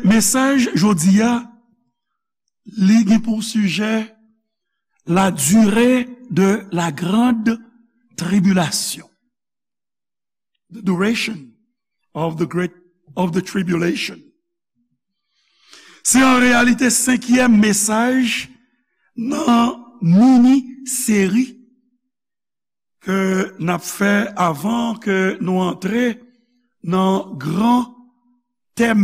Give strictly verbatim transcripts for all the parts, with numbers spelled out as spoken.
Mesaj jodi a, li gen pou sijè la durée de la grande tribulation. The duration of the great, of the tribulation. Se an reyalite senkyèm mesaj nan mini seri ke n ap fè avan ke nou antre nan gran tèm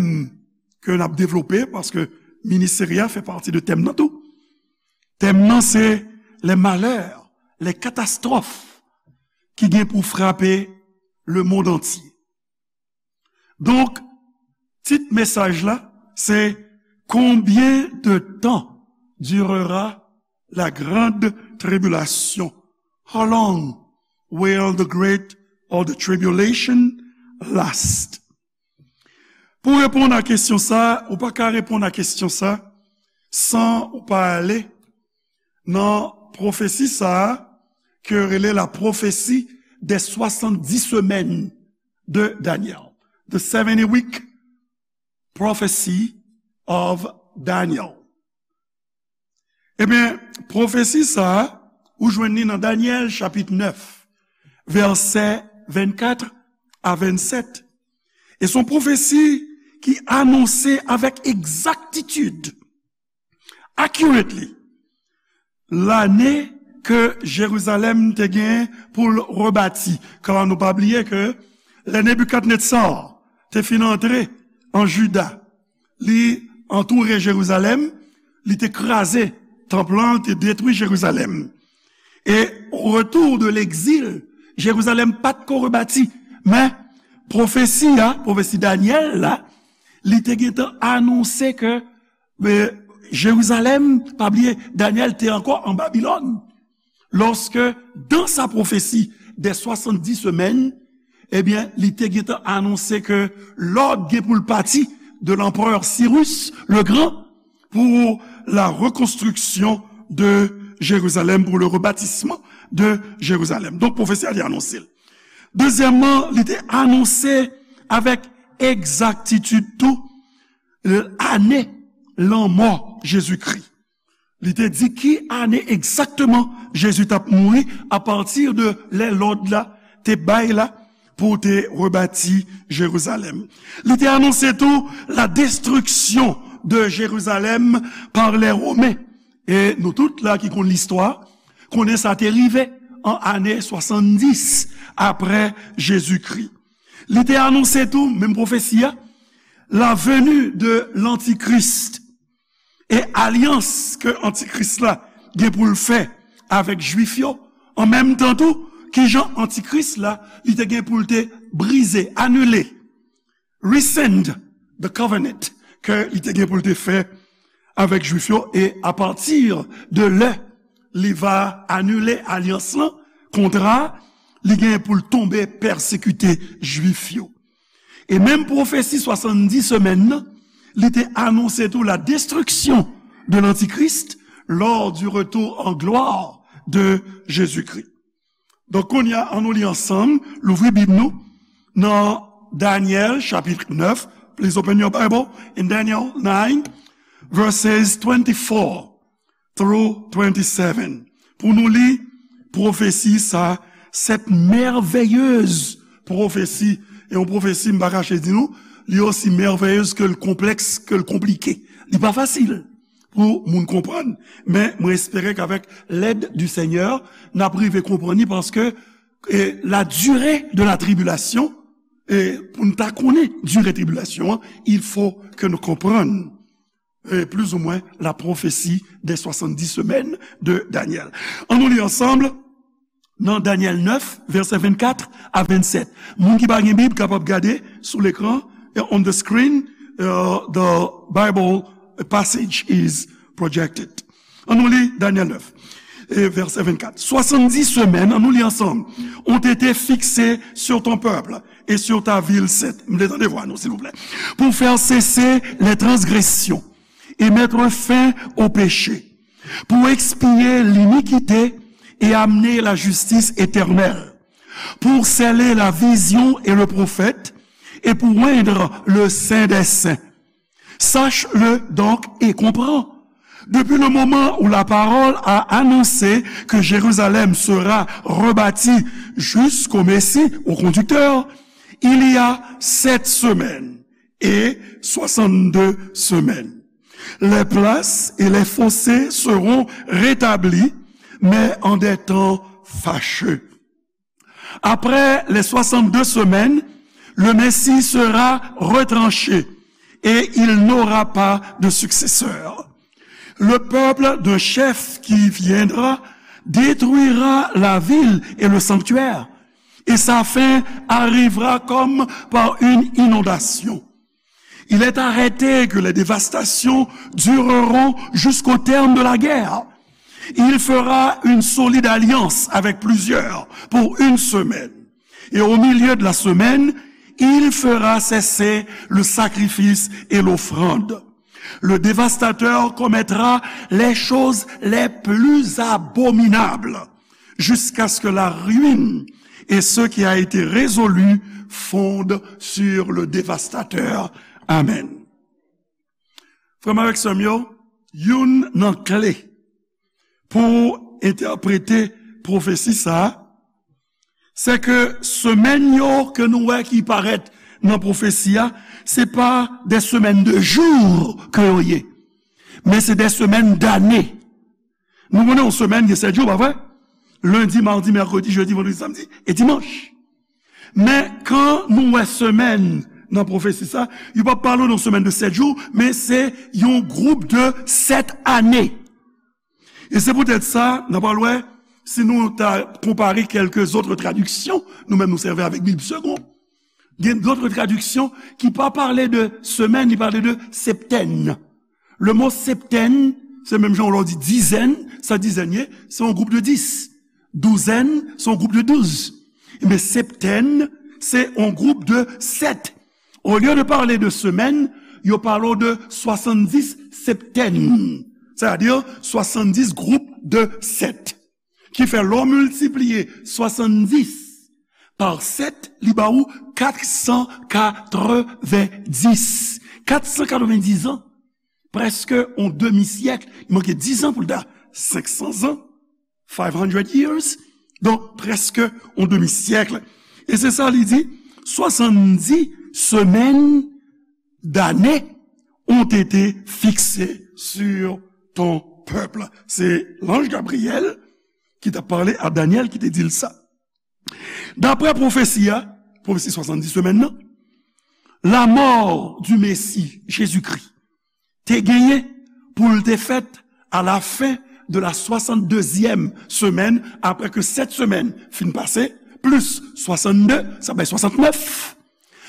ke n ap devlope, paske mini seri a fè pati de tèm nan tou. Tèm nan se les malheurs, les catastrophes ki gen pou frape le monde entier. Donk, tit mesaj la se: Combien de temps durera la grande tribulation? How long will the great or the tribulation last? Pou reponn a kesyon sa, ou pa ka reponn a kesyon sa san ou pa ale nan pwofesi sa a ke yo rele la prophétie des soixante-dix semaines de Daniel. The seventy week prophecy of Daniel. Ebyen, pwofesi sa a, ou jwenn li nan Danyèl chapit nèf, vèsè vennkat a vennsèt. E se yon pwofesi ki anonse avèk egzaktitid, accurately, lane ke Jerizalèm te gen pou l rebati. Kan nou pa bliye ke lè Nebikadnetza te fin antre an Jida, li antoure Jerizalèm, li te kraze tanp lan, li te detwi Jerizalèm. E au retour de l'exil, Jerizalèm pa t ko rebati. Men, pwofesi a, pwofesi Danyèl la, li te gentan anonse ke, e, Jerizalèm, pa bliye, Danyèl te ankò an Babilòn. Lorsque, dans sa prophétie des soixante-dix semaines, ebyen, li te gentan anonse ke lòd gen pou l pati de l'empereur Cyrus le Grand pour la reconstruction de Jérusalem, pour le rebâtissement de Jérusalem. Donk, pwofesi a te anonse l. Dezyèmman, li te anonse avèk egzaktitid tou, ane lanmò Jezikri. Li te di ki ane egzakteman Jezi t ap mouri apati de lè lòd la te bay la pou te rebati Jerizalèm. Li te anonse tou la destruction de Jérusalem par les Romains. E nou tout la ki konn listwa, konnen sa te rive an ane swasanndis apre Jezikri. Li te anonse tou, menm pwofesi a, la venue de l'Antichrist e alyans ke Antikris la gen pou l fè avèk Jwif yo, an menm tan tou, kijan Antikris la, li te gen pou l te brize, anile, rescind the covenant ke li te gen pou l te fè avèk Jwif yo, e apati de lè li va anile alyans lan, kontra, li gen pou l tonbe pèsekite Jwif yo. E menm pwofesi swasanndis semèn nan, li te anonse tou la destruction de l'Antichrist lors du retour en gloire de Jésus-Christ. Donk, kounye a, ann nou li ansanm, louvri Bib nou nan Danyèl, chapit nèf. Please open your Bible in Daniel nine, verses twenty-four through twenty-seven. Pou nou li pwofesi sa, cette merveilleuse prophétie. E yon pwofesi, m pa kache di nou, li osi merveilleuse ke l konplèks, ke l konplike. Li pa fasil pou moun konprann, men mwen espere k'avèk l'aide du Seigneur, n ap rive konprann li, paske, e, la durée de la tribulation, e, pou n ta konnen dire tribilasyon an, il faut que nou konprann, e, plus ou moins la prophétie des soixante-dix semaines de Daniel. Ann nou li ansanm nan Danyèl nèf, vèsè vennkat a vennsèt. Moun ki pa gen Bib kapab gade sou lekran, e, on the screen, uh, the Bible passage is projected. Ann nou li Danyèl nèf, e, vèsè vennkat. Soixante-dix semaines, ann nou li ansanm, ont été fixées sur ton peuple et sur ta ville sainte. M vle tande vwa nou, silvouplè. Pour faire cesser les transgressions et mettre fin au péché, pour expier l'iniquité et amener la justice éternelle, pour sceller la vision et le prophète, et pour oindre le Saint des Saints. Sache-le donc et comprends. Depuis le moment où la parole a annoncé que Jérusalem sera rebâtie jusqu'au Messie, au conducteur, il y a sept semaines et soixante-deux semaines. Les places et les fossés seront rétablis, mais en des temps fâcheux. Après les soixante-deux semaines, le Messie sera retranché et il n'aura pas de successeur. Le peuple d'un chef qui viendra détruira la ville et le sanctuaire, et sa fin arrivera comme par une inondation. Il est arrêté que les dévastations dureront jusqu'au terme de la guerre. Il fera une solide alliance avec plusieurs pour une semaine. Et au milieu de la semaine, il fera cesser le sacrifice et l'offrande. Le dévastateur commettra les choses les plus abominables jusqu'à ce que la ruine et ce qui a été résolu fondent sur le dévastateur. Amen. Frè m avèk sè m yo, youn nan kle pou entèprete pwofesi sa a, se ke semèn yo ke nou wè ki parèt nan pwofesi a, se pa de semèn de jou ke yo ye, men se de semèn dane. Nou konnen yon semèn gen sèt jou, pa vre? Lendi, madi, mèkredi, jedi, vandredi, samdi e dimanch. Men kan nou wè semèn nan pwofesi sa, yo pa pale de yon semèn de sèt jou, men se yon gwoup de sèt ane. E se poutèt sa, n a pral wè, si nou ta konpare kèlke zòt tradiksyon, nou menm nou sèvi avèk Bib Segond. Gen dòt tradiksyon ki pa pale de semèn, li pale de septèn. Le mo septèn, se menm jan w lè w di dizèn, sa dizèn ye, se yon gwoup de dis. Douzèn, se yon gwoup de douz. Men septèn, se yon gwoup de sèt. Olye de pale de semèn, yo pale w de swasanndis septèn. Sètadi swasanndis gwoup de sèt. Ki fè lè w miltipliye swasanndis pa sèt, li ba ou kat san katrevendis. Kat san katrevendis an, prèske yon demi syèk, li manke dis an pou l ta senk san zan, five hundred years, donk prèske yon demi syèk. E se sa li di, swasanndis semèn dane ont été fixées sur ton peuple. Se lanj Gabriyèl ki t ap pale a Danyèl ki te di l sa. Daprè pwofesi a, pwofesi swasanndis semèn nan, la mort du Messie Jésus-Christ te genyen pou l te fèt à la fin de la soixante-deuxième semaine, apre ke sèt semèn fin pase, plis swasanndez, sa bay swasannnèf.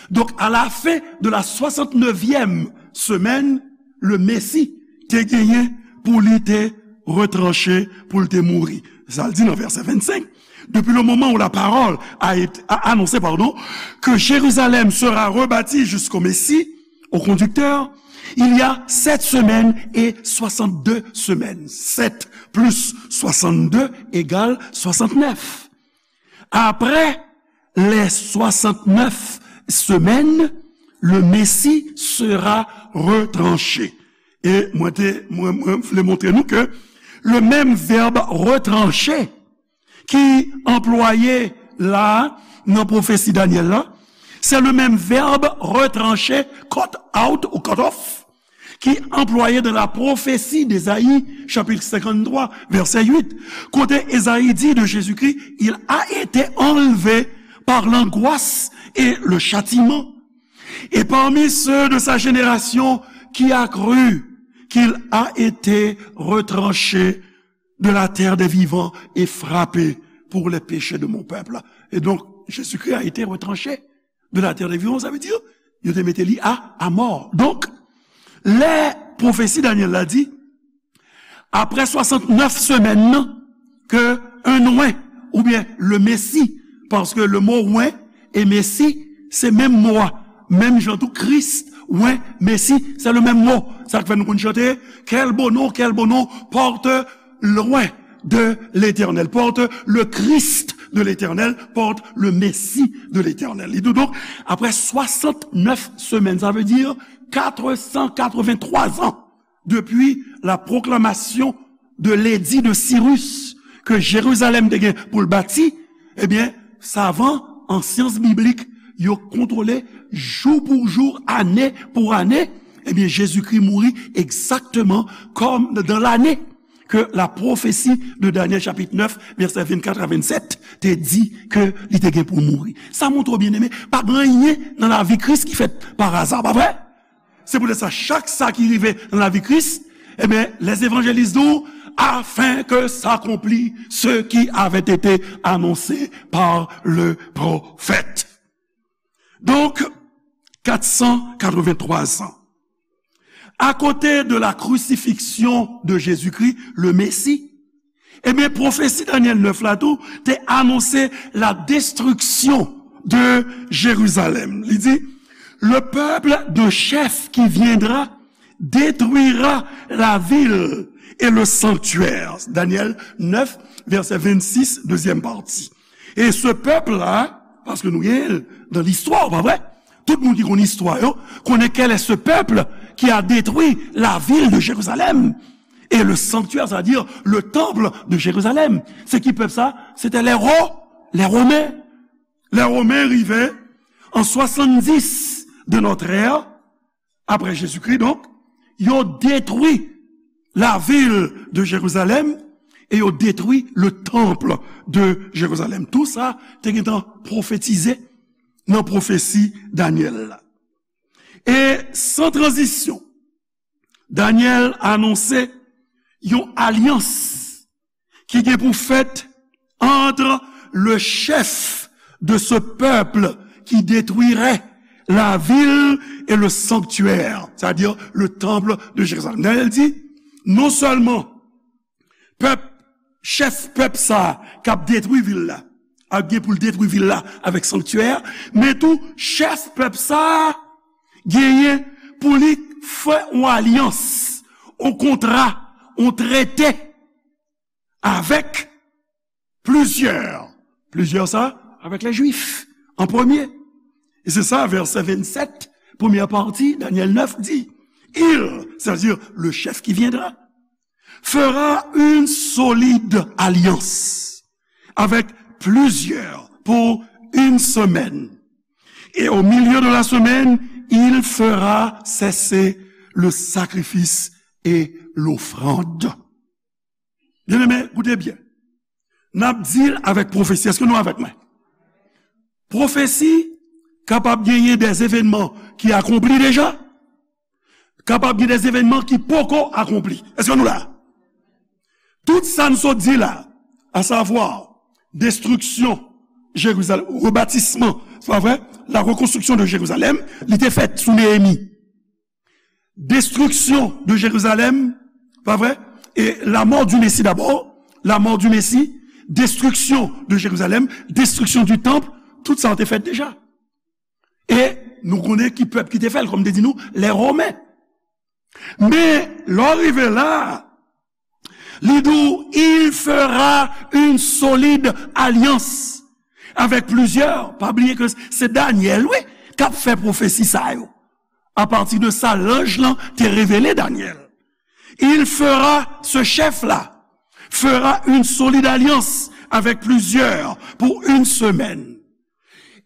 Donk, à la fin de la soixante-neuvième semaine, le Messie te genyen pou li te retranche, pou l te mouri. Sa l di nan vèsè vennsenk, depuis le moment où la parole a été, a annoncé, pardon, que Jérusalem sera rebâtie jusqu'au Messie, au conducteur, il y a sept semaines et soixante-deux semaines. Sept plus soixante-deux égale soixante-neuf. Après les soixante-neuf semaines, le Messie sera retranché. E mwen te, mwen, mwen vle montre nou ke le menm vèb retranche ki anplwaye la nan pwofesi Danyèl la, se le menm vèb retranche, cut out ou cut off, ki anplwaye dans la prophétie d'Ésaïe, chapitre cinquante-trois, verset huit, kote Ezayi di de Jezikri, il a été enlevé par l'angoisse et le châtiment. Et parmi ceux de sa génération, qui a cru qu'il a été retranché de la terre des vivants et frappé pour les péchés de mon peuple. Et donc, Jésus-Christ a été retranché de la terre des vivants, sa vle di, yo te mete li a, a mò. Donk, lè pwofesi Danyèl la di, apre swasannnèf semèn nan, ke un oint, oubyen le Messie, paske le mo oint e Messie, se menm mo a. Menm jan tou, Kris, oint, Messie, se le menm mo. Sa k fè nou konn chante, quel beau nom, quel beau nom porte l'oint de l'Éternel, porte le Christ de l'Éternel, porte le Messie de l'Éternel. Li di w donk, apre swasannnèf semèn, sa vle di Quatre cent quatre-vingt-trois ans depuis la proclamation de l'édit de Cyrus, ke Jerizalèm te gen pou l bati, ebyen, savan an syans biblik, yo kontwole jou pou jou, ane pou ane, ebyen, Jezikri mouri egzakteman kòm dans l'année que la prophétie de Daniel chapitre neuf, verset vingt-quatre à vingt-sept, te di ke li te gen pou mouri. Sa montre w, byeneme, pa gen anyen nan lavi Kris ki fèt pa aza, pa vre? Se poutèt sa, chak sa ki rive nan lavi Kris, ebyen, les évangélistes di w, afin que s'accomplisse ce qui avait été annoncé par le prophète. Donk, quatre cent quatre-vingt-trois ans. À côté de la crucifixion de Jésus-Christ, le Messie, ebyen, pwofesi Danyèl nèf la tou te anonse la destruction de Jérusalem. Li di, le peuple de chef qui viendra détruira la ville et le sanctuaire. Daniel neuf, verset vingt-six, deuxième partie. E se pèp la, paske nou gen l nan listwa, pa vre? Tout moun ki konn istwa yo, konnen quel est ce peuple qui a détruit la ville de Jérusalem et le sanctuaire, c'est-à-dire le temple de Jérusalem. Se ki pèp sa? Se te les Ro-, les Romains. Les Romains rive an swasanndis de notre ère, apre Jezikri, donk, yo detwi lavil de Jerizalèm e yo detwi le temple de Jérusalem. Tou sa te gentan pwofetize nan pwofesi Danyèl la. E san tranzisyon, Danyèl anonse yon alyans ki gen pou fèt entre le chef de ce peuple qui détruirait la ville et le sanctuaire, c'est-à-dire le temple de Jérusalem. Danyèl di, non sèlman pèp, chèf pèp sa a k ap detwi vil la, ap gen pou l detwi vil la avèk sanktyè a, men tou chèf pèp sa a genyen pou li fè yon alyans, yon kontra, yon trete avèk plizyè. Plizyè sa, avèk lè Jwif, an premye. E se sa, vèsè vennsèt, premyè pati, Danyèl nèf di, il, c'est-à-dire le chef qui viendra, fera une solide alliance avec plusieurs pour une semaine. Et au milieu de la semaine, il fera cesser le sacrifice et l'offrande. Byeneme, koute byen. N ap di l avèk pwofesi. Èske nou avèk mwen? Pwofesi kapab genyen des événements ki akonpli deja, kapab gen des événements ki poko akonpli. Èske nou la? Tout sa n sot di la, à savoir destruction Jérusalem, rebâtissement, c'est pas vrai? La reconstruction de Jérusalem, li te fèt sou Neyemi. Destruction de Jérusalem, pas vrai? Et la mort du Messie d'abord, la mort du Messie, destruction de Jérusalem, destruction du temple, tout sa te fèt deja. E nou konnen ki pèp ki te fè l, kòm te di nou, les Romains. Men, lè w rive la, li di w, il fera une solide alliance avec plusieurs. Pa bliye ke se Danyèl, wi, k ap fè pwofesi sa yo. Apati de sa, lanj lan te revele Danyèl. Il fera, ce chef-là, fera une solide alliance avec plusieurs pour une semaine.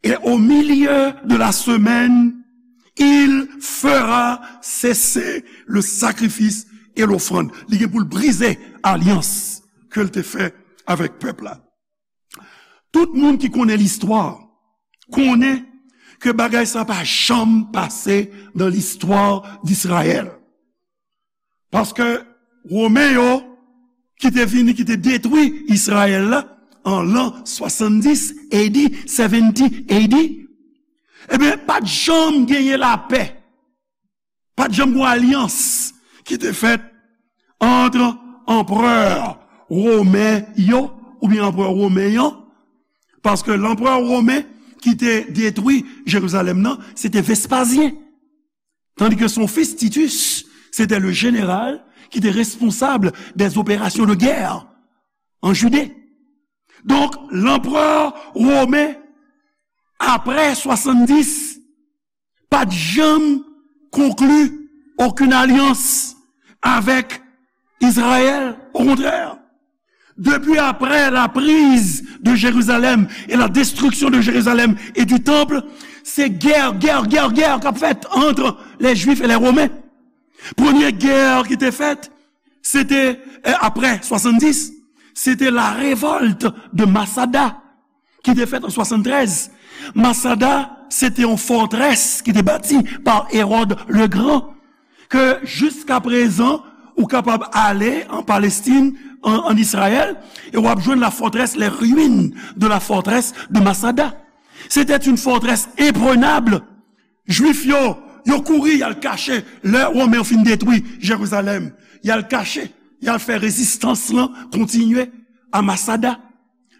Et au milieu de la semaine, il fera cesser le sacrifice et l'offrande. Li gen pou l brize alyans ke l te fè avèk pèp la. Tout moun ki konnen listwa konnen ke bagay sa pa janm pase nan listwa d'Israël. Paske Women yo ki te vini, ki te detwi Izrayèl la an lan swasanndis A D, seventy A D, ebyen, pa t janm genyen lapè. Pa t janm gen alyans ki te fèt ant anperè women yo, oubyen anperè women an, paske lanperè women ki te detwi Jerizalèm nan, se te Vespazyen. Tandis que son fils Titus, c'était le général qui était responsable des opérations de guerre en Judée. Donk, lanperè women, apre swasanndis, pa t janm conclu aucune alliance avec Israël. Au contraire, depuis après la prise de Jérusalem et la destruction de Jérusalem et du temple, se gè, gè, gè, gè k ap fèt ant lè Jwif e lè Women. Premye gè ki te fèt, se te, eh, apre swasanndis, se te la révolte de Masada ki te fèt an swasantrèz. Masada, se te yon fòtrès ki te bati pa Hérode le Grand, ke jiska prezan, ou kapab ale an Palestin, an, an Izrayèl, e w ap jwenn la forteresse, les ruines de la forteresse de Masada. C'était une forteresse imprenable. Jwif yo, yo kouri, y al kache. Lè Women yo fin detwi Jerizalèm, y al kache, y al fè rezistans lan kontinye a Masada.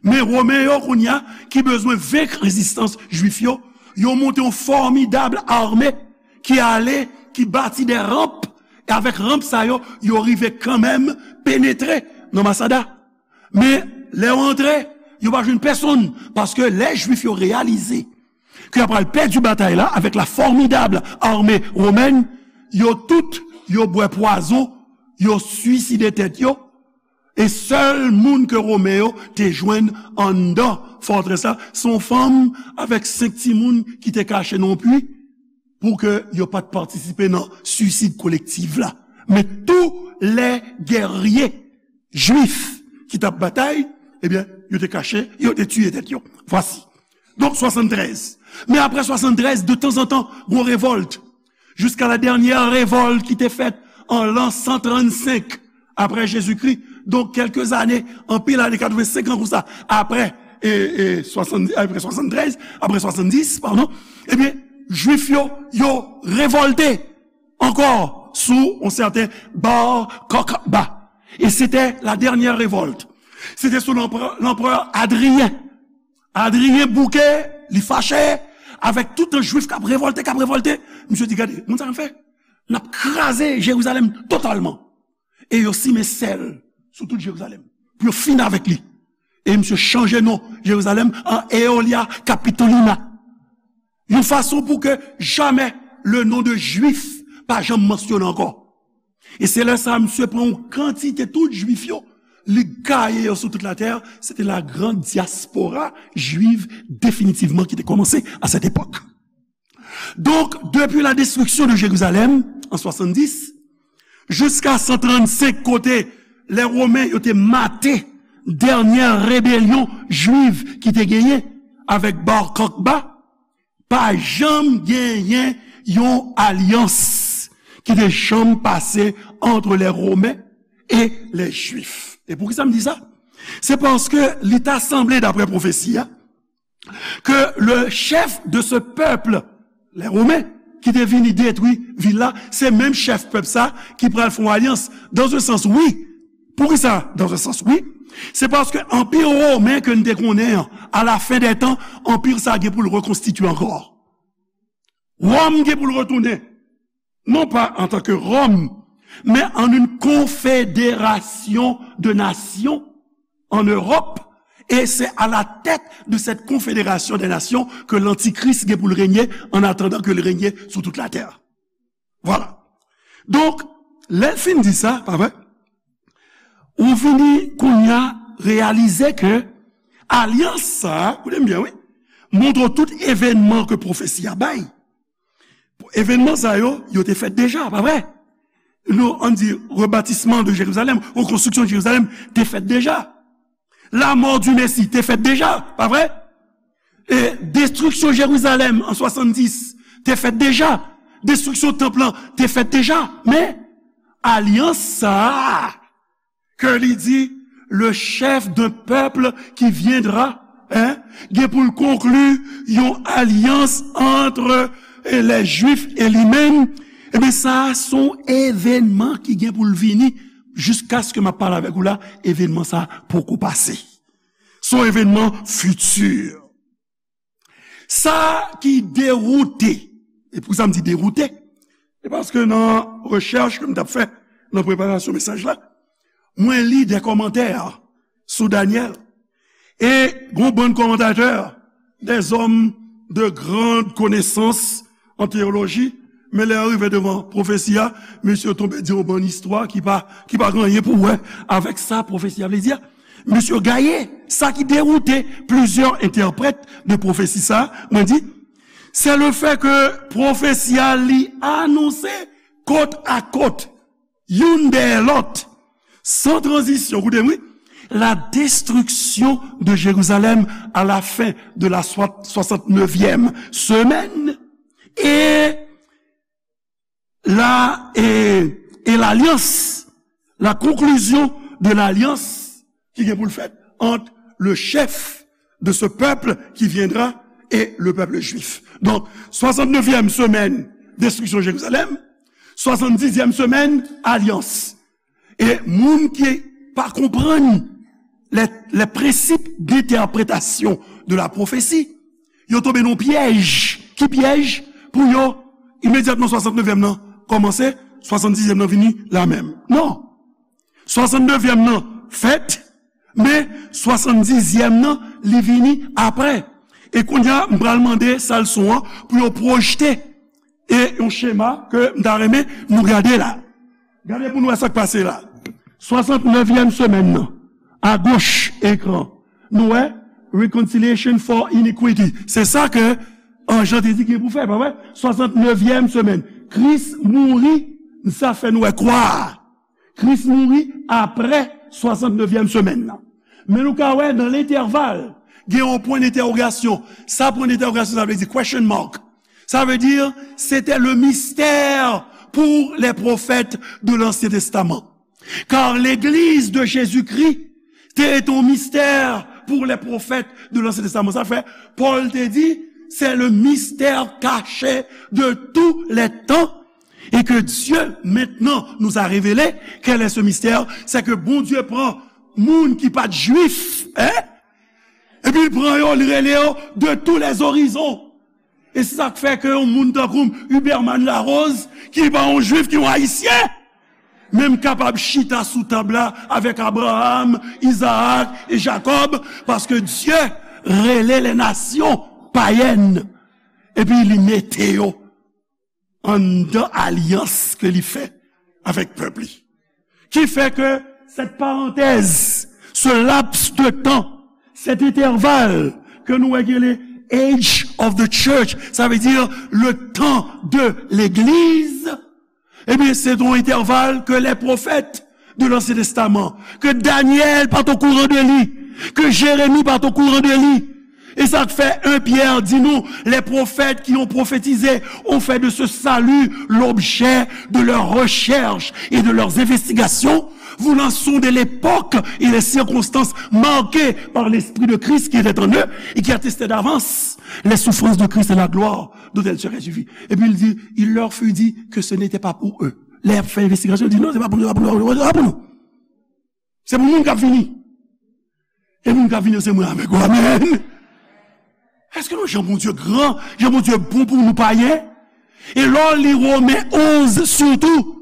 Men Women yo, kounye a, ki bezwen venk rezistans Jwif yo, yo monte yon fòmidab ame ki ale, ki bati de ranp, e avèk ranp sa yo, yo rive kanmenm penetre nan Masada. Men, lè yo antre, yo pa jwenn pèsonn, paske lè Jwif yo reyalize ke y ap pral pèdi batay la avèk la formidable armée romaine, yo tout, yo bwè pwazon, yo swiside tèt yo, e sèl moun ke Women yo te jwenn anndan fòtrès la, se yon fanm avèk senk timoun ki te kache nan yon pwi, pou ke yo pa t patisipe nan swisid kolektif la. Men tous les guerriers juifs ki t ap batay, ebyen, yo te kache, yo te tiye tèt yo. Vwasi. Donk, swasantrèz. Men apre swasantrèz, de tanzantan, gon revòlt. Jiska la dènyè revòlt ki te fèt an lan san trannsenk apre Jezikri. Donk, kèlke zane, anpil ane, katrevensenk an konsa, apre, e, e, swasann, apre swasantrèz, apre swasanndis, padon, ebyen, Jwif yo, yo revòlte ankò sou yon sèten Bar Kokhba. E se te la dènyè revòlt. Se te sou lanprè, lanprè Adriyen. Adriyen bouke, li fache avèk tout yon Jwif k ap revòlte, k ap revòlte. Misye di, "Gade, moun sa n ap fè? N ap kraze Jerizalèm totalman." E yo simen sèl sou tout Jerizalèm pou yo fini avèk li. E misye chanje non Jerizalèm an Aelia Capitolina. Yon fason pou ke jamè le non de Jwif pa janm mansyone ankò. E se lè sa a, misye pran yon kantite tout Jwif yo, li gaye yo sou tout latè. Se te la grande diaspora juive definitivman ki te kòmanse à cette époque. Donk, depi la destriksyon de Jerizalèm an swasanndis, jiska san trannsenk, kote lè Women yo te mate dènyè rebelyon jwiv ki te genyen avèk Bar Kokhba, pa janm genyen yon alyans ki te janm pase entre les Romains et les Juifs. E poukisa m di sa? Se paske li ta sanble, daprè pwofesi a, ke le chef de ce peuple, les Romains, ki te vini detwi vil la, se menm chèf pèp sa ki pral fè yon alyans. Dans un sens, wi. Poukisa? Dans un sens, wi. Se paske anpi women ke n te konnen an, à la fin des temps, anpi sa gen pou l rekonstitye ankò. Wòm gen pou l retounen, non pas en tant que Rome, mais en une confédération de nations en Europe, et c'est à la tête de cette confédération des nations que l'Antichrist gen pou l renye, en attendant que l renye sou tout la terre. Voilà. Donk, lè l fin di sa, pa vre? Ou vini kounye a reyalize ke alyans sa a, koute m byen, wi, montre tout evènman ke pwofesi a bay. Evènman sa yo, yo te fèt deja, pa vre? Nou, ann di, rebatisman de Jerizalèm, rekonstriksyon de Jerizalèm te fèt deja. La mort du Messie te fèt deja, pa vre? E destriksyon Jerizalèm an swasanndis te fèt deja. Destriksyon tanp lan te fèt deja. Men, alyans sa a, ke li di, le chef d'un peuple qui viendra, hein, gen pou l konkli yon alyans entre, eh, les Juifs et li menm. Ebyen, sa a se yon evènman ki gen pou l vini. Jiskaske m ap pale avèk ou la, evènman sa a poko pase. Se yon evènman fiti. Sa ki dewoute, e poukisa m di dewoute? Se paske nan rechèch ke m t ap fè nan preparasyon mesaj la, mwen li de kòmantè sou Danyèl. E gon bann kòmantatè, des hommes de grande connaissance en théologie, Men lè yo rive devan pwofesi a, mesye yo tonbe di yon bann istwa ki pa, ki pa gen anyen pou wè avèk sa pwofesi a vle di a. Mesye yo gaye, sa ki dewoute plizyè entèprèt de pwofesi sa, mwen di, se le fè ke pwofesi a li anonse kot a kot, youn dèyè lòt, san tranzisyon, koute m wi, la destruction de Jérusalem à la fin de la soi-, soixante-neuvième semaine et la, et, et l'alliance, la conclusion de l'alliance ki gen pou l fèt entre le chef de ce peuple qui viendra et le peuple juif. Donc, soixante-neuvième semaine, destruction de Jérusalem, soixante-dixième semaine, alliance. E moun ki pa konprann les, les principes d'interprétation de la prophétie, yo tonbe nan pyèj. Ki pyèj? Pou yo, imedyatman swasann nevyèm nan kòmanse, swasann dizyèm nan vini la menm. Non. Swasann nevyèm nan fèt, men swasann dizyèm nan, li vini apre. E kounye a, m pral mande sa leson an pou yo pwojte e yon chema ke m ta renmen nou gade la. Gade pou nou wè sa k pase la. Swasann nevyèm semèn nan, agoch ekran, nou wè, reconciliation for iniquity. Se sa ke anj lan te di gen pou fè, pa vre? Swasann nevyèm semèn. Kris mouri, sa fè nou wè kwa a. Kris mouri apre swasann nevyèm semèn nan. Men nou ka wè nan lentèval, gen yon pwen dentèwogasyon. Sa pwen dentèwogasyon sa vle di, question mark. Ça veut dire, c'était le mystère pour les prophètes de l'Ancien Testament. Car l'Église de Jésus-Christ était un mystère pour les prophètes de l'Ancien Testament. Sa fè, Pòl te di, c'est le mystère caché de tous les temps, et que Dieu maintenant nous a révélé. Quel est ce mystère? C'est que Bondye pran moun ki pa t jwif, hein? Epi l pran yo, li rele yo de tous les horizons. E se sa k fè ke yon moun tankou m, Huberman Larose, ki pa yon jwif, ki yon ayisyen, menm kapab chita sou tab la avèk Abraham, Izaak e Jakòb, paske Dye rele les nations païennes, epi li mete yo anndan alyans ke li fè avèk pèp li. Ki fè ke cette parenthèse, ce laps de temps, cet intervalle ke nou wè ki rele Age of the Church, sa vle di le temps de l'Église, ebyen, se yon entèval ke les prophètes de l'Ancien Testament, ke Danyèl pa t okouran de li, ke Jeremi pa t okouran de li. E sa k fè en Pyè di nou, les prophètes qui ont prophétisé ont fait de ce salut l'objet de leurs recherches et de leurs investigations, voulant sonder l'époque et les circonstances marquées par l'Esprit de Christ qui était en eux et qui attestait d'avance les souffrances de Christ et la gloire dont elles seraient suivies. Epi l di, il leur fut dit que ce n'était pas pour eux. Lè y ap fè envestigasyon, l di, non, se pa pou nou, se pa pou nou, se pa pou nou, se pa pou nou. Se pou moun k ap vini. E moun k ap vini yo se mwen avèk ou. Amèn. Èske nou, jan Bondye gran, jan Bondye bon pou nou payen? E lè w li Women onz sitou,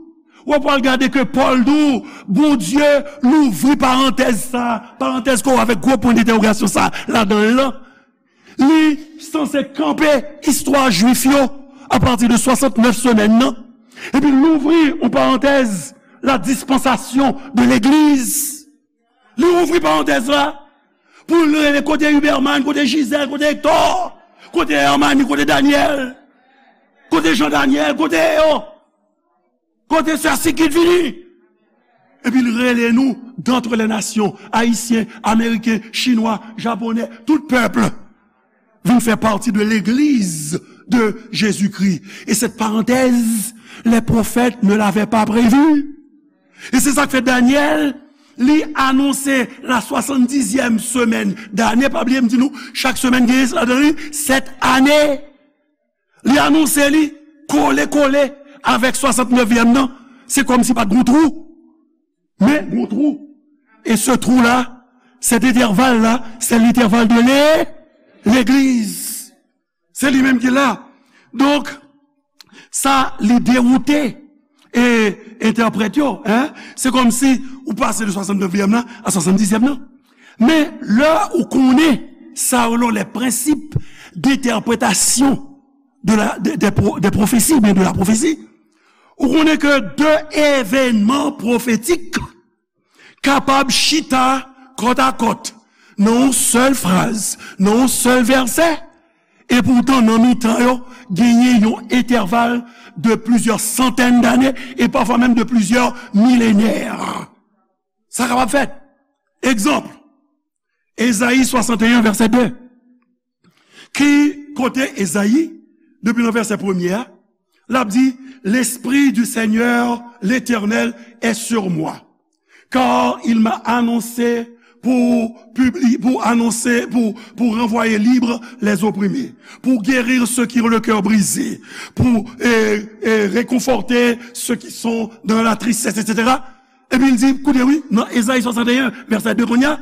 w ap pral gade ke Pòl di w, Bondye louvri parantèz sa, parantèz ke w avèk gwo pwen dentèwogasyon sa ladan l lan. Li sanse kanpe istwa jwif yo apati de swasannnèf semèn nan, epi l ouvri yon parantèz, la dispensation de l'Église. Li ouvri parantèz la pou l rele kote Huberman, kote Gisèle, kote Hector, kote Hermanie, kote Daniel, kote Jean Daniel, kote yo. Kote sè Sikit vini? Epi l rele nou, d'entre les nations, ayisyen, ameriken, chinwa, japonè, tout pèp vin fè pati de l'Église de Jésus-Christ. Et cette parenthèse, les prophètes ne l'avaient pas prévue. E se sa k fè Danyèl, li anonse la swasann dizyèm semèn dane. Pa bliye m di nou, chak semèn gen ladan li sèt ane. Li anonse li kole kole avèk swasann nevyèm nan. Se kòmsi pa t gon twou. Men gon twou. E se twou la, cet intervalle la, c'est l'intervalle de l'é-, l'Église. Se li menm ki la. Donk, sa li dewoute e entèprèt yo, en. Se kòmsi ou pase de swasann nevyèm nan a swasann dizyèm nan. Men lè ou konnen sa yo, les principes d'interprétation de la, de, de pro-, de pwofesi, oubyen de la pwofesi. Ou konnen ke de evènman pwofetik kapab chita kòtakòt nan yon sèl fraz, nan yon sèl vèsè, e poutan nan mitan yo, genyen yon entèval de plizyè santèn dane, e pafwa menm de plizyè milenè. Sa kapab fèt. Egzanp, Ezayi swasanteyen, vèsè de. Ki kote Ezayi, depi nan vèsè premye a, l ap di, L'Esprit du Seigneur l'Éternel est sur moi, car il m'a annoncé pour publier, pour annoncer, pour, pour renvoyer libres les opprimés, pour guérir ceux qui ont le cœur brisé, pour, euh, euh, réconforter ceux qui sont dans la tristesse, et cetera. Epi l di, koute wi, nan Ezayi swasanteyen, vèsè de kounye a,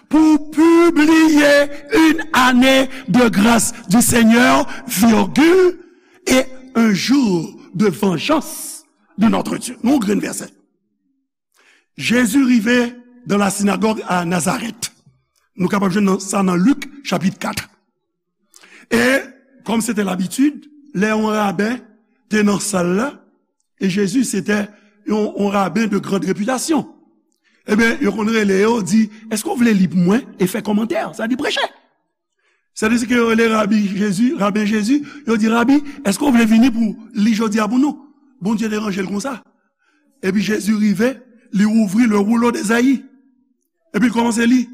pour publier une année de grâce du Seigneur, virgule, et un jour de vengeance de notre Dieu. Nou grenn vèsè. Jezi rive dans la synagogue à Nazareth. Nou kapab jwenn nan, sa nan Lik, chapit kat. E, kòm se te labitid, lè yon raben te nan sal la, e Jezi se te yon, yon raben de grande réputation. Ebyen, yo konn rele yo, di, èske w vle li pou mwen? E fè kòmantè, sa di preche. Sètadi ke yo rele Rabi Jezi, Raben Jezi, yo di, Rabi, èske w vle vini pou li jodi a pou nou? Bondye te ranje l konsa. Epi Jezi rive, li ouvri le rouleau d'Esaïe. Epi l kòmanse li.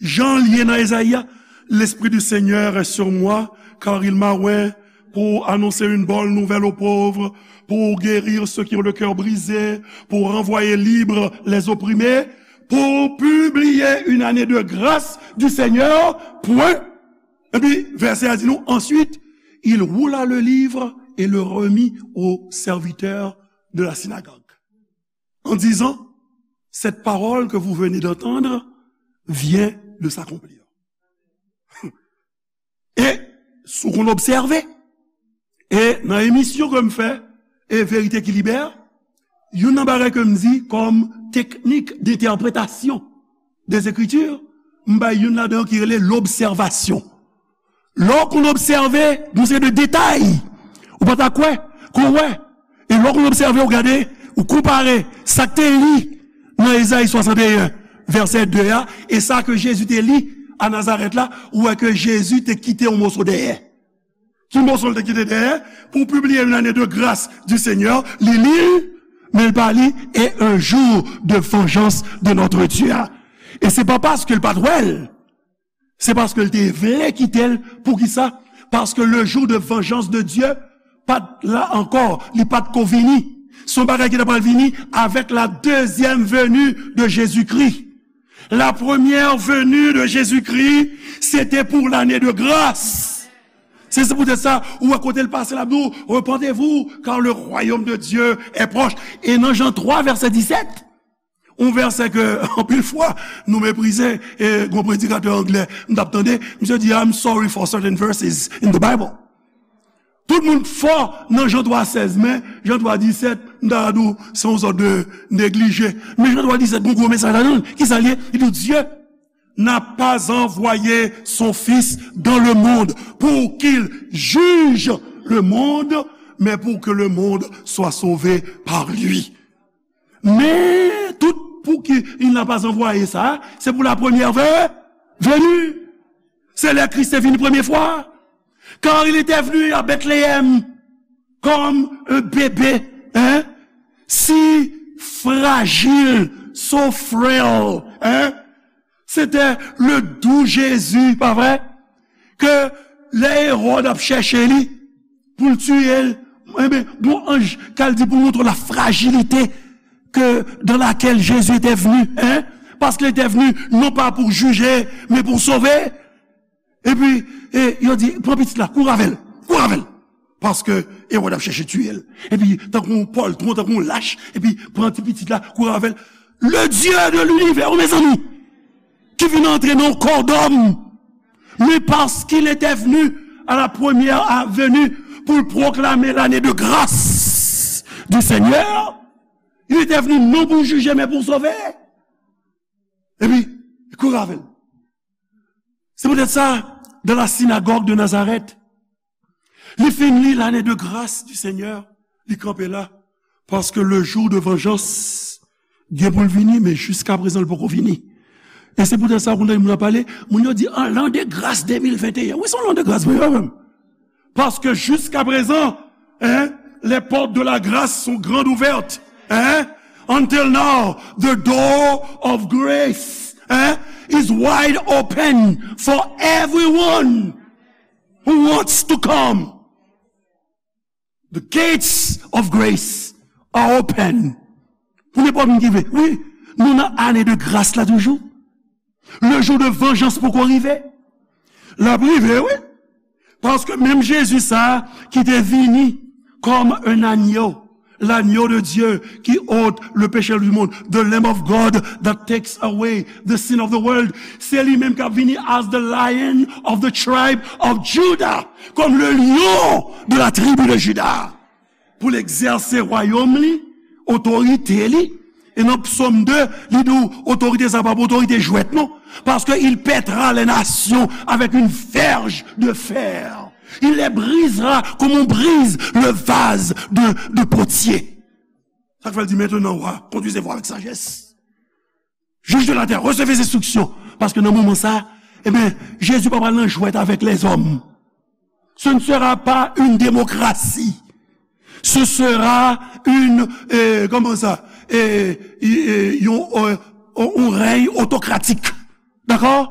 Jan l ye nan Ezayi a, L'Esprit du Seigneur est sur moi, car il m'a oint pour annoncer une bonne nouvelle aux pauvres, pour guérir ceux qui ont le cœur brisé, pour renvoyer libres les opprimés, pour publier une année de grâce du Seigneur, point. Epi, vèsè a di nou, ensuite, il roula le livre et le remit au serviteur de la synagogue, en disant, Cette parole que vous venez d'entendre vient de s'accomplir. E, si w konn obsève, e nan emisyon ke m fè, e Verite ki Libè, youn nan bagay ke m di kòm teknik d'entèpretasyon des Écritures, m bay youn ladan yo ki rele lobsèvasyon. Lè w konn obsève, gon seri de detay, ou pa ta kwè, ke w wè. E lè w konn obsève, w gade, ou konpare sa k te li nan Ezayi swasanteyen, vèsè de a, e sa ke Jezi te li a Nazarèt la, ou wè ke Jezi te kite yon moso dèyè. Ki moso l te kite dèyè? Pour publier une année de grâce du Seigneur, li li l, men l pa li, et un jour de vengeance de notre Dieu. E se pa paske l pa t wè l, se paske l te vle kite l. Poukisa? Paske le jour de vengeance de Dieu pa t la ankò, li pa t ko vini. Se yon bagay ki ta pral vini avec la deuxième venue de Jésus-Christ. La première venue de Jésus-Christ, c'était pour l'année de grâce. Se, se poutèt sa, ou wè kote l pase la, nou, repentez-vous, car le royaume de Dieu est proche. E nan Jan twa, vèsè disèt, yon vèsè ke, anpil fwa, nou meprize, e gon predikatè anglè, m t ap tande, misye di, I'm sorry for certain verses in the Bible. Tout moun fò nan Jan twa sèz, men Jan twa disèt, m ta di w, se yon sòt de neglije. Men Jan twa disèt, gon gwo mesaj ladan l. Kisa l ye? Li di, Dieu n'a pas envoyé son Fils dans le monde pour qu'il juge le monde, mais pour que le monde soit sauvé par lui. Men tout pou ki il n'a pas envoyé sa, se pou la première ve-, venue. Se lè Kris te vini premye fwa. Car il était venu à Bethléem comme un bébé, hein, si fragile, so frail, hein. C'était le doux Jésus, pa vre? Ke lè Ewòd ap chèche li pou l tiye l, enben, gon anj k al di pou montre la fragilité que, dans laquelle Jésus était venu, hein? Parce qu'il était venu non pas pour juger, mais pour sauver. Epi, e, yo di, pran pitit la, kouri avè l, kouri avè l. Paske Ewòd ap chèche tiye l. Epi, tankou yon pòltwon, tankou yon lach, epi pran ti pitit la, kouri avè l. Le Dieu de l'univers, mezanmi, ki vin antre nan kò dòm. Mais parce qu'il était venu à la première venue pour proclamer l'année de grâce du Seigneur, il était venu non pour juger, mais pour sauver. Epi, kouri avè l. Se poutèt sa, dans la synagogue de Nazareth, Li fin li, lane de gras di Senyè, li kanpe la. Paske le jou de vanjans gen pou l vini, men jiska prezan l poko vini. E se poutèt sa, ou konn tande moun ap pale, moun yo di, an, l'an de gras de mil venteyen. Wi, se yon l'an de gras, wi, wi, wi. Paske jiska prezan, hein, les portes de la grâce sont grandes ouvertes, hein. Until now, the door of grace, hein, is wide open for everyone who wants to come. The gates of grace are open. Pou nenpòt moun ki vle. Wi, nou nan ane de gras la toujou. Le jou de vanjans poko rive. L ap rive, wi. Paske menm Jezi sa a ki te vini kòm un agneau, l'agneau de Dieu qui ôte le péché du monde, the Lamb of God that takes away the sin of the world. Se li menm k ap vini as the Lion of the tribe of Judah, comme le lion de la tribu de Juda, pou l egzèse wayòm li, otorite li. E nan Psaume deux, li di w otorite sa pa otorite jwèt, non. Parce que il pètera les nations avec une verge de fer. Il les brisera comme on brise le vase de, de potier. Sa k fè l di, maintenant, roi, conduisez-vous avec sagesse. Juges de la terre, recevez instruction. Paske nan moman sa, ebyen, Jezi pa pral nan jwèt avèk lèzòm. Ce ne sera pas une démocratie. Ce sera une, euh, comment ça, euh, euh, yon, euh, yon rèy otokratik. Dakò?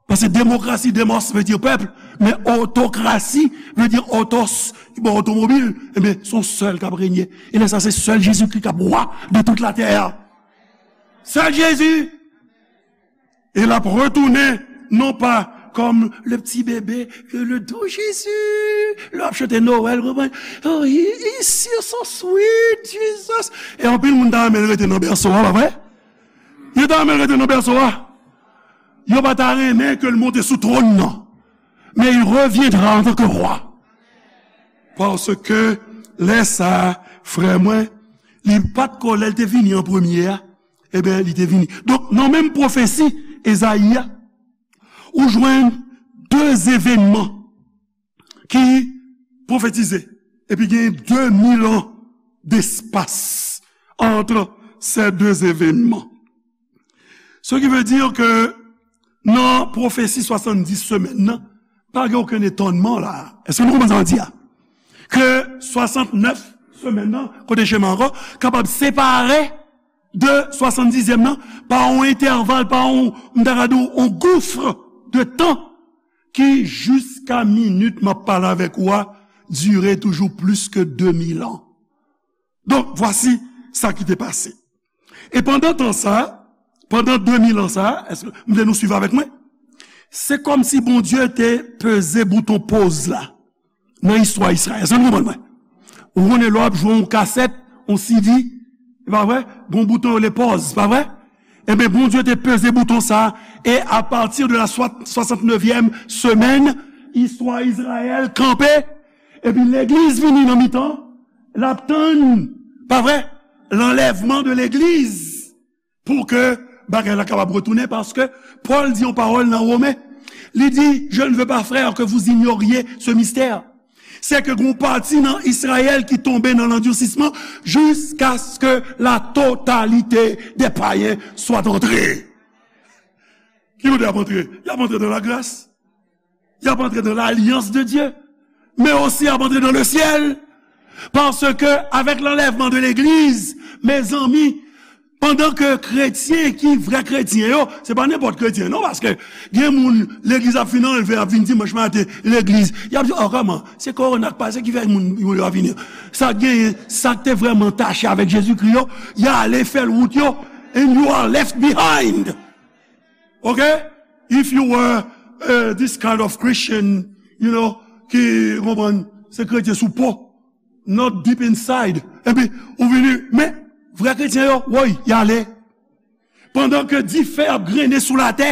Paske demokrasi, demos vle di pèp, men otokrasi vle di otos, ki ba w otomobil, ebyen, se yon sèl k ap renye. E lè sa, se sèl Jezikri k ap wa de tout latè a. Sèl Jezi. E l ap retounen, non pa comme le petit bébé, que le doux Jésus, lè w ap chante Noël, konprann? Oh, he, he's so, so sweet, Jesus. E anpil moun ta renmen l rete nan bèso a, pa vre? Yo ta renmen l rete nan bèso a. Yo pa ta renmen ke l monte sou twòn nan. Mais il reviendra en tant que roi. Paske lè sa a, frè mwen, li pa t ko lè l te vini an premye a, ebyen, li te vini. Donk, nan menm pwofesi Ezayi a, ou jwenn de evènman ki pwofetize, epi gen de mil an d'espas entre ces deux événements. Ce qui veut dire que nan pwofesi swasanndis semèn nan, pa gen okenn etònman la. Èske nou konprann sa m di a? Ke swasantnèf semèn nan, kote chema ankò, kapab separe de swasanndizyèm nan pa yon entèval, pa yon, m ta ka di w, yon gouf de tan ki jiska minit m ap pale avèk ou a, dire toujou plis ke de mil an. Donk, vwasi sa ki te pase. E pandan tan sa, pandan de mil an sa, èske m vle nou swiv avèk mwen? Se kòmsi Bondye te peze bouton poz la nan istwa Izrayèl. Èske nou konprann mwen? Ou konnen lè w ap jwe yon kasèt, yon C D, e pa vre? Gon bouton yo rele pòz, pa vre? Ebyen, Bondye te peze bouton sa, e apati de la swa-, swasantnevyèm semèn, istwa Izrayèl kanpe, epi legliz vini nan mitan, l ap tann, pa vre? Lanlèvman de legliz. Pou ke bagay la kapab retounen, paske Pòl di yon pawòl nan Women. Li di, je ne veux pas, frères, que vous ignoriez ce mystère. C'est que gon pati nan Izrayèl ki tonbe nan landisisman jusqu'à ce que la totalité des païens soit entrée. Ki kote y ap antre? Y ap antre dans la grâce. Y ap antre dans l'alliance de Dieu, mais aussi y ap antre dans le ciel. Paske avèk lanlèvman de legliz, mezanmi, pandan ke kretyen ki vrè kretyen yo, se pa nenpòt kretyen non, paske gen moun legliz ap fin anlve, ap vin dimanch maten legliz, y ap di, oh, kòman? Se kowona k pase ki fè moun yo pa vini. Sa k genyen, sa k te vrèman tache avèk Jezikri yo, y ale fè l wout yo, and you are left behind. Ok? If you were, uh, this kind of Christian, you know, ki konprann se kretyen sou po, not deep inside. Epi, ou vini, men, vrè kretyen yo, woy, y ale. Pandan ke dife ap grennen sou latè,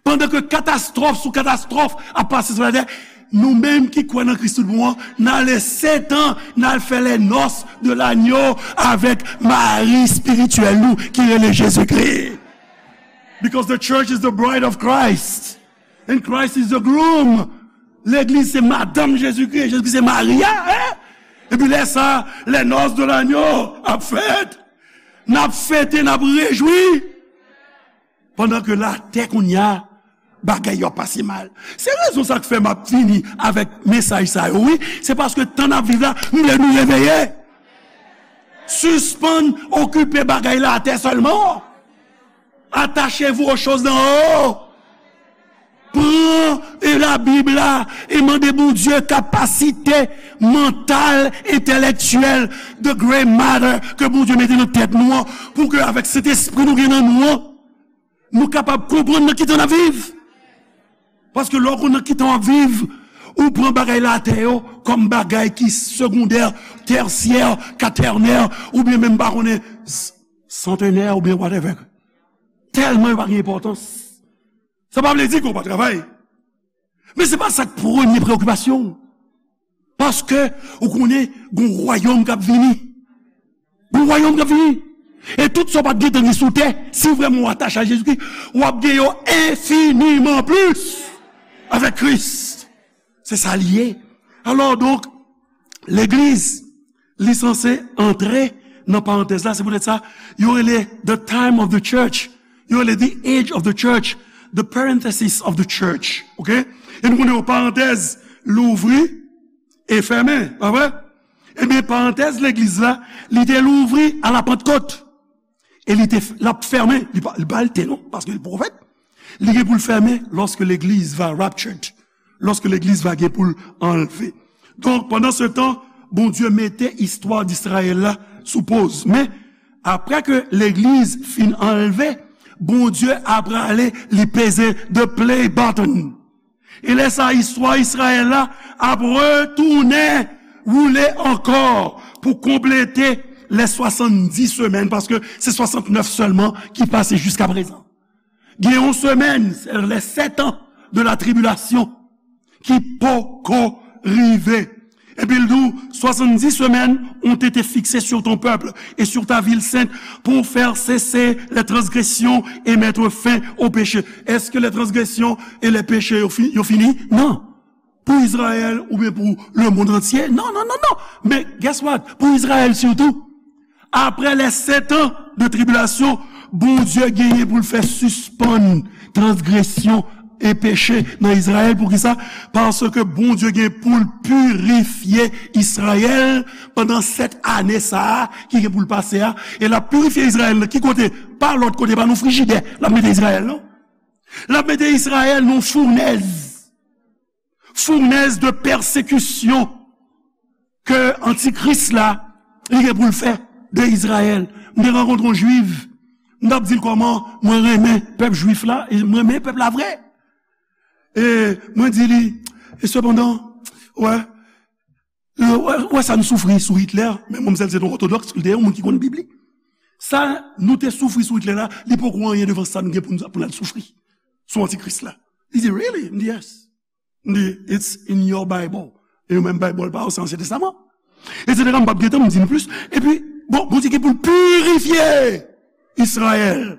pandan ke katastwòf sou katastwòf ap pase sou latè, nou menm ki kwè nan Kris tout bon an, n ale Setan, n al fè les noces de l'agneau avèk mari espirityèl nou ki rele Jezikri. Because the church is the bride of Christ, and Christ is the groom. Legliz se madanm Jezikri, Jezikri se mari a, en? Epi lè sa, les noces de l'agneau ap fèt. N ap fete, n ap rejwi. Pandan ke latè kounye a, bagay yo ap pase mal. Se rezon sa k fè m ap vini avèk mesaj sa yo, wi. Se paske tan n ap viv la, m vle nou reveye. Sispann okipe bagay latè sèlman. Attachez-vous aux choses d'en haut. Pran e Labib la e mande Bondye kapasite mantal, entelektyèl, the gray matter ke Bondye mete nan tèt nou an, pou ke avèk Sentespri nou gen nan nou an, nou kapab konprann nan ki tan n ap viv. Paske lè w konn nan ki tan w ap viv, ou pran bagay latè yo kòm bagay ki segondè, tèsyè, katènè, oubyen menm pa konnen s-, santenè oubyen whatever. Tèlman yo pa gen enpòtans. Sa pa vle di ke w pa travay. Men se pa sa k premye preokipasyon w. Paske ou konnen gon wayòm k ap vini. Gon wayòm k ap vini. E tout sa w pa t gentan gen sou tè, si vrèman w atache a Jezikri, w ap gen yo enfiniman plis avèk Kris. Se sa l ye. Alò, donk, legliz, li sanse antre nan parantèz la. Se poutèt sa, yo rele the time of the church. Yo rele the age of the church. The parenthesis of the church. Ok? E nou konnen yon parantèz louvri e fèmen, pa vre? Ebyen, parantèz legliz la, li te louvri a la Pantkot. E li te, l ap fèmen, li pa, li pa l te non, paske li pwofèt. Li gen pou l fèmen lorsque l'église va raptured, lorsque l'église va gen pou l anlve. Donk, pandan se tan, Bondye mete istwa Izrayèl la sou poz. Men, apre ke legliz fin anlve, Bondye ap prale, li peze the play button. E lè sa, istwa Izrayèl la ap retounen woule ankò pou konplete lè swasanndis semèn, paske se swasantnèf sèlman ki pase jiska prezan. Gen yon semèn, c'est les sept ans de la tribulation, ki poko rive. Epi l di w, soixante-dix semaines ont été fixées sur ton peuple et sur ta ville sainte pour faire cesser les transgressions et mettre fin au péché. Est-ce que les transgressions et les péchés yo fi-, yo fini? Non. Pou Izrayèl oubyen pou le monde entier? Non, non, non, non. Men guess what? Pou Izrayèl sitou. Apre les sept ans de tribulation, Bondye genyen pou l fè sispann transgresyon e peche nan Izrayèl. Poukisa? Paske Bondye gen pou l pirifye Izrayèl pandan sèt ane sa a ki gen pou l pase a. E l ap pirifye Izrayèl nan ki kote? Pa lòt kote, pa nan frijidè l ap mete Izrayèl, non. L ap mete Izrayèl nan founèz. Founèz de pèsekisyon ke antikris la, li gen pou l fè de Izrayèl. M te rankontre yon jwif, m t ap di l kòman mwen renmen pèp jwif la, e mwen renmen pèp la vre. E mwen di li, e sepandan, wè, e wè, wè sa n soufri sou Hitler, men manmzèl se yon òtodòks, li te yon moun ki konn Bib li. Sa nou te soufri sou Hitler la, li poko anyen devan sa nou gen pou n, pou n al soufri sou antikris la. Li di, really? M di, yes. M di, it's in your Bible. E yo menm Bible pa yo, se Ansyen Testaman. Etsetera, m p ap gen tan, m di nou plis. Epi, bon, Bondye gen pou l pirifye Izrayèl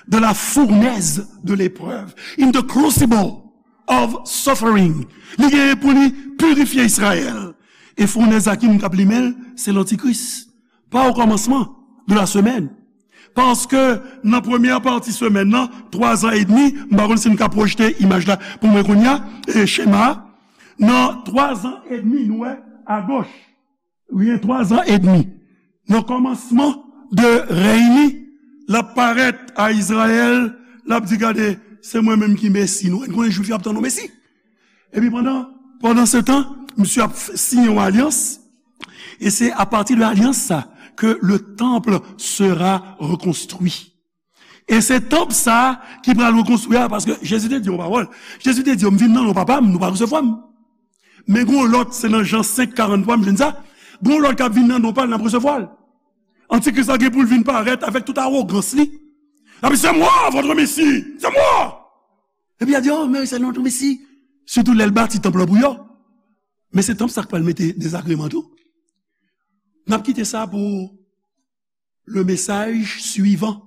de la fournaise de l'épreuve, in the crucible of suffering. Li gen pou li pirifye Izrayèl. E founèz a ki moun k ap limen l? Se lantikris. Pa o kòmansman de la semèn. Paske nan premyè pati semèn nan, twa zan edmi, m pa konn si n ka pwojte imaj la pou mwen kounye a, e chema a, nan twa zan edmi, nou wè, agoch, wi, twa zan edmi, nan kòmansman de rèy li, l ap parèt a Izrayèl, l ap di, gade, se mwen menm ki Mesi nou. N konnen Jwif yo ap tann yon Mesi. Epi pandan, pandan se tan, misye ap f-, siyen yon alyans. E se apati de alyans sa ke le temple sera reconstruit. E se tanp sa ki pral rekonstwi a, paske Jezi te di yon pawòl. Jezi te di yo, m vin nan non papa m, nou pa resevwa m. Men gon lòt, se nan Jan senk karant twa, m jwenn sa. Gon lòt k ap vin nan non pa l, n ap resevwa l. Antikris la gen pou l vin parèt avèk tout awogans li. L ap di, c'est moi, votre Messie, c'est moi. Epi y a di, oh, men se nou tou, Mesi. Sitou lè l bati tanp lan pou yo. Men se tanp sa k pral mete dezagreman tou. N ap kite sa pou le message suivant.